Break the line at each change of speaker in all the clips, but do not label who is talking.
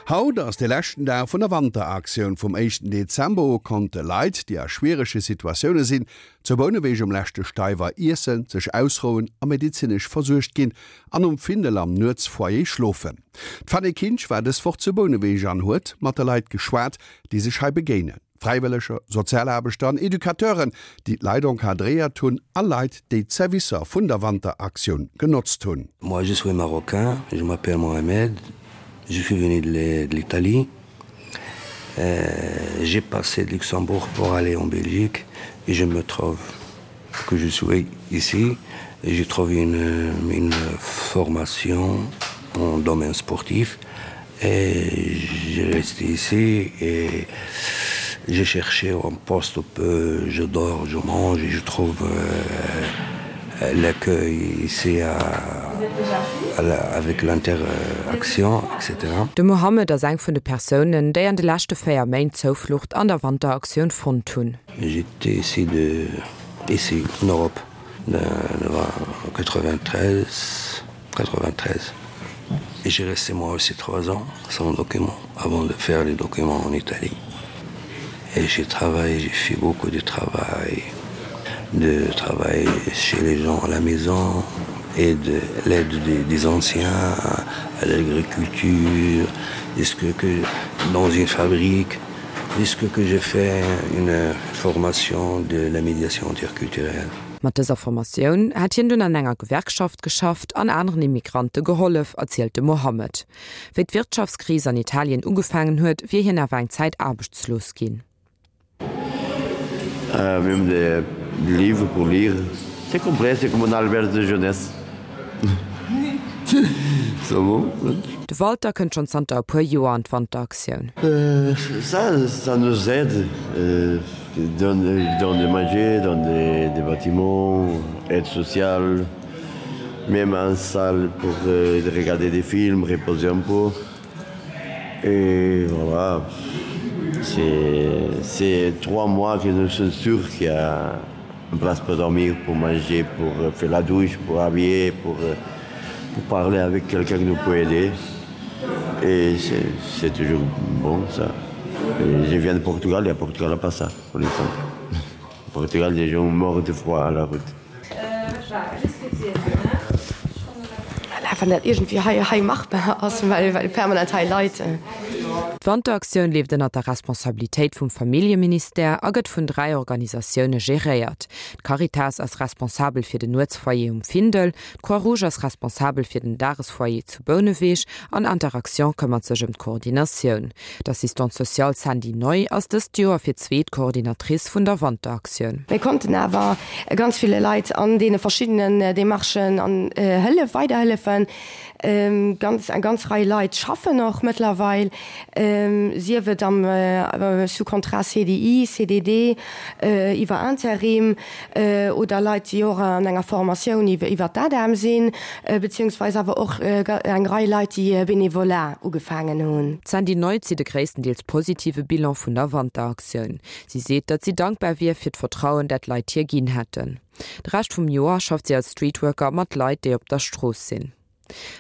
Haut ass de leschten Dag vun der Wanteraktioun. Vum éischten Dezember u konnte Leit, déi a schwierege Situatioune sinn, zu Bouneweg um leschte Steiwer iessen, sech ausrouen a medezinesch versuergt ginn an um Findel am Nuetsfoyer schlofen. D'Fanny Kinsch war dës Woch zu Bouneweg an huet mat de Leit geschwat, déi sech hei begéinen. Fräiwëlleger, Sozialaarbechter an Educateuren, déi d'Leit encadréiert hunn a Leit, déi d'Servicer vun der Wanteraktioun genotzt hunn.
Moi je suis marocain, je m'appelle Mohamed, je suis venu de l'Italie, j'ai passé de Luxembourg pour aller en Belgique et je me trouve que je suis ici et j'ai trouvé une, une formation en domaine sportif et j'ai resté ici et j'ai cherché un poste où je dors, je mange et je trouve euh, l'accueil ici à, à la, avec l'interaction etc.
De Mohammed ass eng vun de Persounen, déi an de leschte 4 Méint Zouflucht an der Wanteraktioun fonnt hunn.
J'étais ici de ici en Europe de, de 93 93 et j'ai resté moi aussi trois ans sans document avant de faire les documents en Italie. Et j'ai travaillé, j'ai fait beaucoup de travail, de travail chez les gens à la maison et de l'aide des, des anciens à, à l'agriculture, ce que, que dans une fabrique, puisque que j'ai fait une formation de la médiation interculturelle.
Mat dëser Formatioun hätt hien dunn an enger Gewerkschaft geschafft an aneren Immigrante gehollef, erzielt de Mohammed. Wéi d'Wirtschaftskris an Italien ugefaangen huet, wier hien awer eng Zäit aarbechtslos ginn.
Même des livres pour lire. C'est complet, c'est comme un auberge de jeunesse. C'est bon.
De Walter kënnt schonn zanter e puer Joer an d'Wanteraktioun.
Ça, ça nous aide, donne donne de manger, donne des des bâtiments, aide sociale, même un salle pour regarder des films, reposer un peu. Et voilà, c'est 3 mois que nous sommes sûrs qu'il y a une place pour dormir, pour manger, pour faire la douche, pour habiller, pour, pour parler avec quelqu'un qui nous peut aider. Et c'est toujours bon ça. Et je viens de Portugal et à Portugal n'a pas ça, pour l'exemple. Au Portugal, des gens morts de froid à la route.
Voilà, wann dat iergendwéi hei, hei machbar ass, well, well permanent hei Leit.
D'Wanteraktioun leeft ënnert der Responsabilitéit vum Familljeministère a gëtt vun 3 Organisatioune geréiert. D'Caritas ass responsabel fir den Nuetsfoyer um Findel, d'Croix-Rouge ass responsabel fir den Dagesfoyer zu Bouneweg an Interaction këmmert sech ëm d'Koordinatioun. D'Assistante sociale Sandy Neu ass dëst Joer fir d'zweet Coordinatrice vun der Wanteraktioun.
Mir konnten awer ganz ville Leit an deene verschiddenen Demarchen an Hëllef weiderhëllefen. Ganz, eng ganz Rei Leit schaffen och mëttlerweil, sief et am sous contrat CDI, CDD, iwwer Interim oder Leit, déi och an enger Formatioun iwwer d'ADEM sinn, beziehungsweis awer och eng Rei Leit, déi Bénévolat ugefaangen hunn.
D'Sandy Neu zitt e gréisstendeels positive Bilan vun der Wanteraktioun. Si seet, datt si dankbar wier fir d'Vertrauen, dat d'Leit hir ginn hätten. De Rescht vum Joer schafft si als Streetworker mat Leit, déi op der Strooss sinn.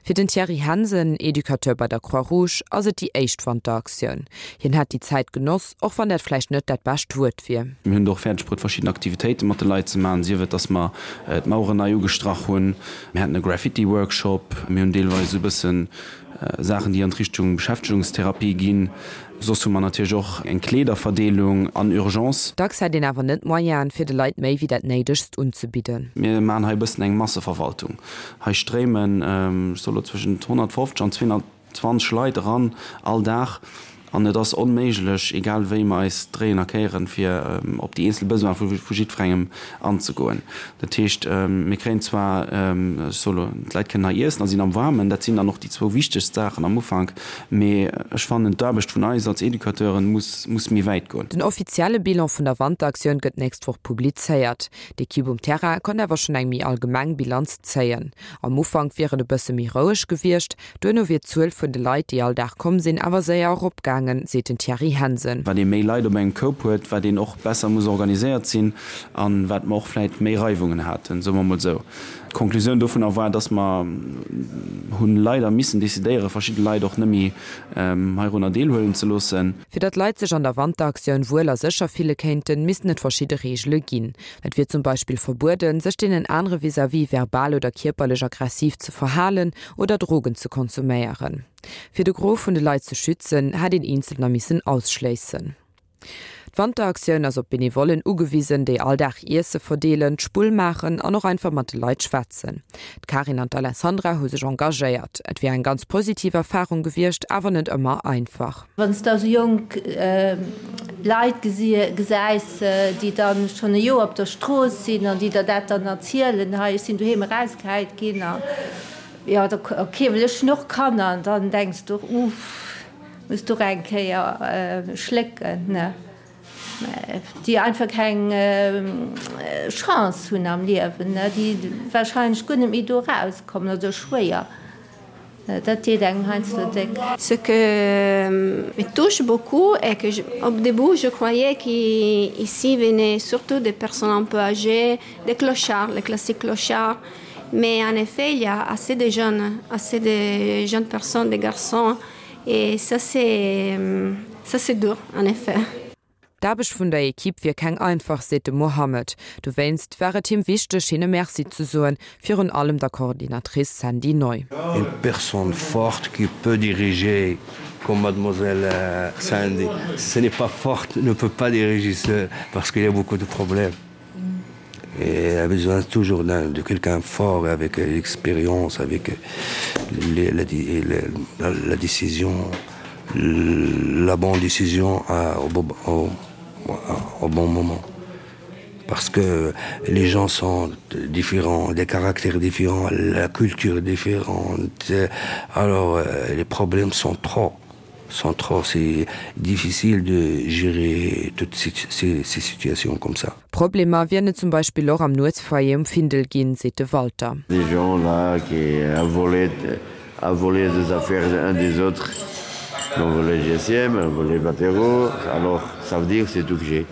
Fir den Thierry Hansen, Educateur bei der Croix-Rouge, ass et déi éischt Wanteraktioun. Hien hätt déi Zäit genoss, och wann dat vläicht net dat bescht Wuert wier.
Mir hunn et och fäerdeg bruet verschidden Aktivitéite mat de Leit ze maachen, sief et dass mer d'Maueren nei ugestrach hunn, mir haten e Graffiti-Workshop, mir hunn deelweis esou e bëssen Saachen déi an d'Richtung Beschäftegungstherapie ginn. Soss hu mer natierlech och eng Kleederverdeelung an Urgence.
Dacks hätt een awer net d'Moyenen, fir de Leit méi wéi dat Néidegst unzebidden.
Mir maachen hei e bëssen eng Masseverwaltung. Hei stréimen, ech soe lo zwëschent 150 an 220 Leit eran all Dag. An et ass onméiglech, egal wéi mer eis dréien a kéieren, fir op déi eenzel Besoine vu jiddwerengem anzegoen. Dat heescht, mir kréien zwar, ech soe lo, d'Leit kënnen hei iessen a sinn am Waarmen, dat sinn dann och déi zwou wichtegst Saachen am Ufank, mee ech fannen, d'Aarbecht vun eis als Educateuren muss, muss méi wäit goen.
Den offizielle Bilan vun der Wanteraktioun gëtt d'nächst Woch publizéiert. D'Ekipp um Terrain konnt awer schonn eng méi allgemeng Bilanz zéien. Am Ufank wier et e bësse méi roueg gewiescht, Duerno wier d'Zuel vun de Leit, déi all Dag komm sinn, awer séier eropgaangen, seet den Thierry Hansen.
Wat ee méi Leit op engem Koup huet, wat een och besser muss organiséiert sinn an wat mer och vläit méi Reiwungen haten, soe mer mol esou. D'Konklusioun dovunner war, dass mer hunn leider missen decidéieren, verschidde Leit och net méi heirunner deelhuelen ze loossen.
Fir datt d'Leit sech an der Wanteraktioun wuel a sécher fille kéinten, missten et verschidde Reegele ginn. Et wier zum Beispill verbueden, sech deenen anere vis-à-vis verbal oder kierperlech aggressiv ze verhalen oder Drogen ze konsuméieren. Fir de Gros vun de Leit ze schützen, hätt een Eenzelner missen ausschléissen. D'Wanteraktioun ass op Benevollen ugewisen, déi all Dag Iesse verdeelen, d'Spull maachen an och einfach mat de Leit schwätzen. D'Karin an d'Alessandra hu sech engagéiert. Et wier eng ganz positiv Erfarung gewiescht, awer net ëmmer einfach.
Wann s de esou jonk Leit gesäis, déi dann schonn e Joer op der Strooss sinn an déi der dat dann erzielen, hei ech sinn doheem erausgehäit ginn a jo, ok, well ech hunn och Kanner an dann denks de och, uff. Muss du och eng Kéier schlécken, ne? Déi einfach keng Chance hunn am Liewen, ne? Déi wahrscheinlech guer net méi do erauskommen oder schwéier. Dat deet engem heiansdo déck.
Ce que me touche beaucoup est que au début je croyais qu'ici venaient surtout des personnes un peu âgées, des clochards, les classiques clochards, mais en effet il y a assez de jeunes, assez de jeunes personnes, des garçons Et ça c'est ça c'est dur en effet.
D'Aarbecht vun der Ekipp wier keng einfach, seet de Mohammed. Dowéinst war et him wichteg, hinne Merci ze soen, virun allem der Coordinatrice Sandy Neu.
Une personne forte qui peut diriger comme mademoiselle Sandy. Si ce n'est pas forte, ne peut pas diriger seule parce qu'il y a beaucoup de problèmes. Et elle a besoin toujours de quelqu'un fort avec l'expérience, avec les, la, la, la décision, la bonne décision à, au, au, au bon moment. Parce que les gens sont différents, des caractères différents, la culture différente, alors les problèmes sont trop sont trop c'est difficile de gérer toutes ces, ces, ces situations comme ça.
Problemer wieren et zum Beispill och am Nuetsfoyer um Findel ginn, seet de Walter.
Des gens là qui a volé a volé des affaires un des autres ont volé GSM, ont volé 20 euros, alors ça veut dire c'est tout que j'ai.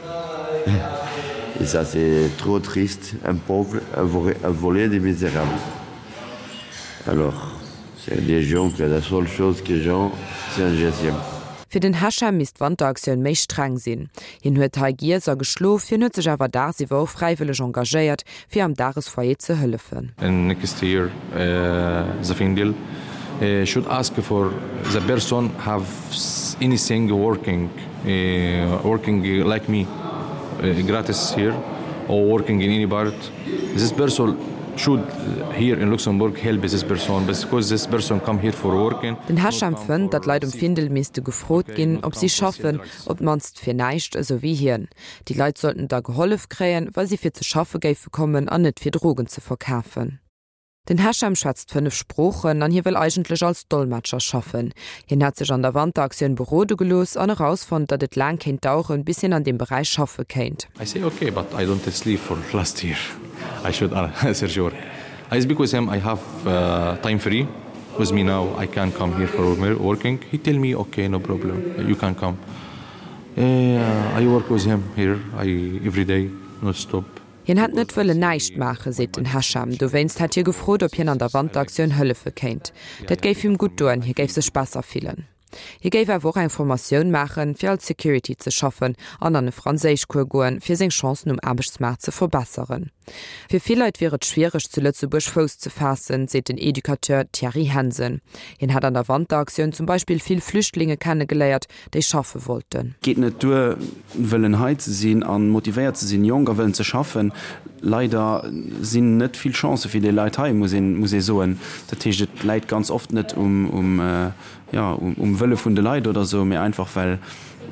Et ça c'est trop triste, un pauvre a volé, a volé des misérables. Alors C'est des gens que la seule chose que gens c'est un GSM.
Fir den Hachem misst d'Wanteraktioun méi streng sinn. Hien huet hei giess a geschlof, hien huet sech awer dagsiwwer och fräiwëlleg engagéiert, fir am Dagesfoyer ze hëllefen.
Next year the Findel should ask for the person have anything working working like me gratis here or working in any part this person should here in Luxembourg help this person because this person come here for working.
Den Hesham fënnt, datt d'Leit um Findel misste gefrot ginn, ob si schaffen, op d'mannst fir näischt, esou wéi hien. Déi Leit sollten da gehollef kréien, wa si fir ze schaffe géife kommen an net fir Drogen ze verkafen. Den Hesham schwätzt 5 Sproochen an hie wëll eigentlech als Dolmetscher schaffen. Hien hätt sech an der Wanteraktioun berode gelooss an erausfonnt, datt et laang kéint daueren, bis hien an deem Beräich schaffe kéint.
I say ok but I don't sleep for last year I should search work I speak with him I have time free with me now I can come here for working he tell me ok no problem you can come I work with him here I every day not stop.
Hien hätt net wëllen näischt maachen, seet den Hesham. Dowéinst hätt hie gefrot, ob hien an der Wanteraktioun hëllefe kéint. Dat géif him gutt doen, hie géif sech besser fillen. Hie géif awer och eng Formatioun maachen, fir als Security ze schaffen an an e Franséischcours goen, fir seng Chancen um Aarbechtsmaart ze verbesseren. Fir vill Leit wier et schwiereg, zu Lëtzebuerg Fouss ze faassen, seet den Educateur Thierry Hensen. Hien hätt an der Wanteraktioun zum Beispill vill Flüchtlinge kennegeléiert, déi schaffe wollten.
Geet net duer wëllen hei ze sinn a motivéiert ze sinn, jonk a wëllen ze schaffen. Leider sinn net vill Chancë fir déi Leit hei, muss een, muss ee soen. Dat heescht, et läit ganz oft net um, um, jo, um Wëlle vun de Leit oder esou, mee einfach well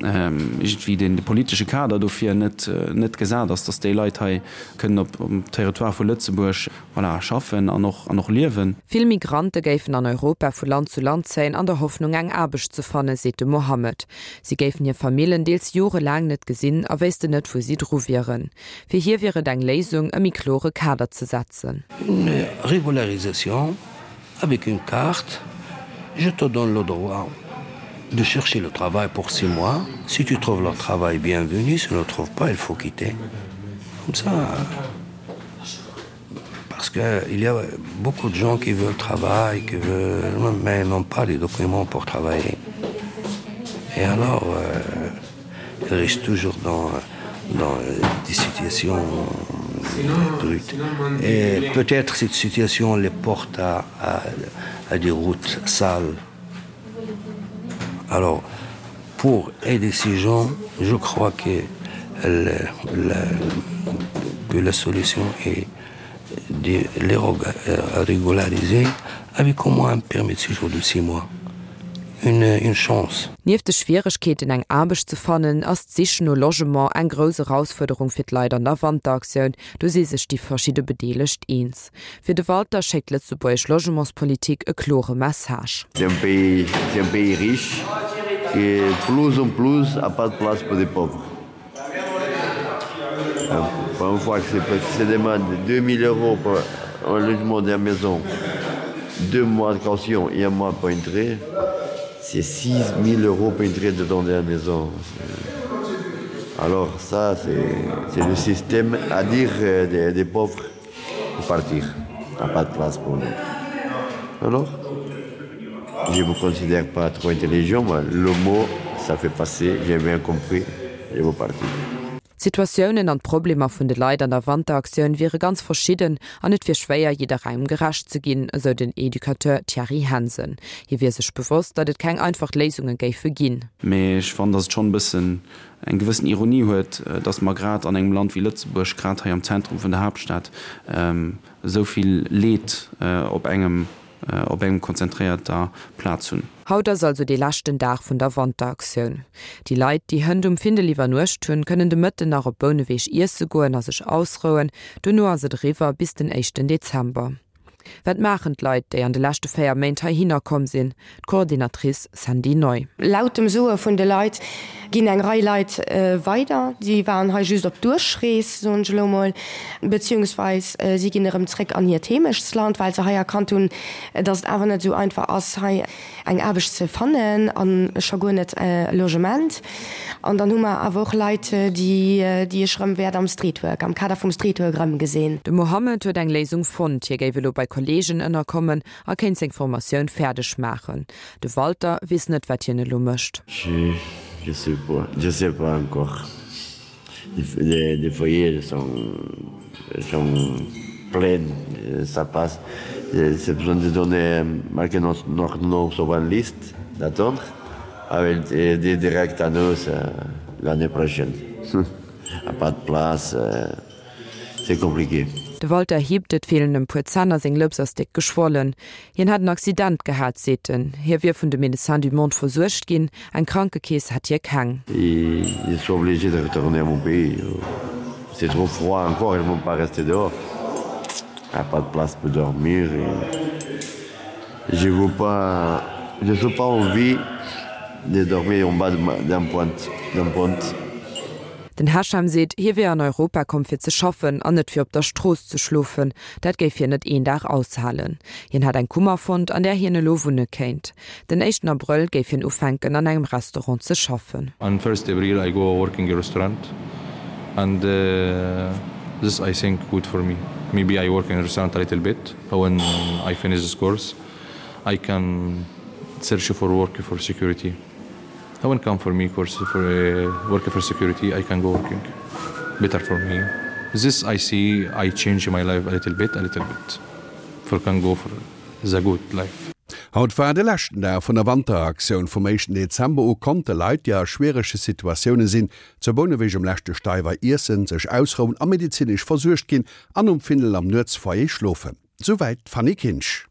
iergendwéi deen, de politesche Kader dofir net, net gesat ass, datt déi Leit hei kënnen op, um Territoire vu Lëtzebuerg, voilà, schaffen an och, an och liewen.
Vill Migrante géifen an Europa vu Land zu Land zéien an der Hoffnung eng Aarbecht ze fannen, seet de Mohammed. Si géifen hir Famillen deels jorelaang net gesinn a wéissten net wou si dru wieren. Fir hie wier et eng Léisung, e méi klore Kader ze setzen.
Une régularisation avec une carte, je te donne le droit de chercher le travail pour six mois. Si tu trouves le travail, bienvenue, si tu ne le trouves pas, il faut quitter. Comme ça. Parce qu'il y a beaucoup de gens qui veulent travailler, qui veulent, mais n'ont pas les documents pour travailler. Et alors euh, ils restent toujours dans, dans des situations brutes. Et peut-être cette situation les porte à, à, à des routes sales. Alors pour aider ces gens, je crois que le, la, que la solution est de les euh, régulariser avec au moins un permis de séjour de six mois. Une, une chance.
Nieft de Schwieregkeeten eng Aarbecht ze fannen, ass d'Sich no Logement eng grouss Erausfuerderung fir d'Leit an der Wanteraktioun. Do si sech déi verschidde Bedeelegt eens. Fir de Walter schéckt d'lëtzebuergesch Logementspolitik e klore Message.
C'est un pays, c'est un pays riche qui plus en plus a pas de place pour des pauvres. Pour une fois que c'est demande 2000 euros pour un logement d'une maison, deux mois de caution et un mois pour entrer, c'est 6000 euros pour entrer dedans de la maison. Alors ça, c'est le système à dire euh, des, des pauvres pour partir. Il n'y a pas de place pour nous. Alors, je ne me considère pas trop intelligent, mais le mot, ça fait passer, j'ai bien compris, je veux partir.
D'Situatiounen an d'Problemer vun de Leit an der Wanteraktioun wiere ganz verschidden an et wier schwéier, jidderengem gerecht ze ginn, esou den Educateur Thierry Hansen. Hie wier sech bewosst, datt et keng einfach Léisunge géife ginn.
Mee ech fannen, datt et schonn e bëssen eng gewëssen Ironie huet, datt mer grad an engem Land wéi Lëtzebuerg, grad hei am Zentrum vun der Haaptstad, esou vill Leed op engem op engem konzentréierter Plaz hunn.
Haut ass also dee leschten Dag vun der Wanteraktioun. Déi Leit, déi hënt um Findel iwwernuecht hunn, kënnen de Mëtten nach op Bouneweg iesse goen a sech ausrouen. Dono ass et eriwwer bis den éischten Dezember. Wat maachen d'Leit, déi an de leschte 4 Méint heihinner komm sinn? D'Coordinatrice Sandy Neu.
Laut dem Soe vun de Leit ginn eng Rei Leit weider, déi waren hei just op Duerchrees, soen ech elo mol, beziehungsweis si ginn erëm zréck an hiert Heemechtsland, well se hei erkannt hunn, datt et awer net esou einfach ass, hei eng Aarbecht ze fannen a scho guer net e Logement. An dann hu mer awer och Leit, déi déi ech erëm wäert am Streetwork, am Kader vum Streetwork erëmgesinn.
De Mohammed huet eng Léisung fonnt, hie géif elo bei Kolleegen ënnerkommen a kéint seng Formatioun fäerdeg maachen. De Walter weess net, wat hien elo mécht.
Je sais pas, je sais pas encore. Les, les foyers sont, sont pleins, ça passe. C'est besoin de donner marquer notre, notre nom sur une liste d'attendre avec des direct à nous l'année prochaine. A pas de place. C'est compliqué.
De Walter hiebt, et feelen em puer Zänn a seng Lëps ass déck geschwollen. Hien hätt en Accident gehat, seet en. Hie wier vun de Médecins du Monde versuergt ginn, eng Krankekeess hätt hie keng.
Je suis obligé de retourner à mon pays. C'est trop froid encore, ils vont pas rester dehors. Il n'y a pas de place pour dormir. Et je veux pas, je n'ai pas envie de dormir en bas d'un pont, d'un pont.
Den Hesham seet, hie wier an Europa komm fir ze schaffen an net fir op der Strooss ze schlofen. Dat géif hien net een Dag aushalen. Hien hätt eng Kummer fonnt, an där hien elo wunne kéint. Den éischten Abrëll géif hien ufänken an engem Restaurant ze schaffen.
On first April I go working a restaurant and this I think good for me. Maybe I work in a restaurant a little bit when I finish this course I can search for work for security. When come for me course for uh, work for security I can go working better for me. This I see I change my life a little bit a little bit for can go for the good life.
Haut war de leschten Dag vun der Wanteraktioun. Vum éischten Dezember u konnte Leit, déi a schwierege Situatioune sinn, zu Bouneweg um leschte Steiwer iessen, sech ausrouen a medezinesch versuergt ginn an um Findel am Nuetsfoyer schlofen. Souwäit d'Fanny Kinsch.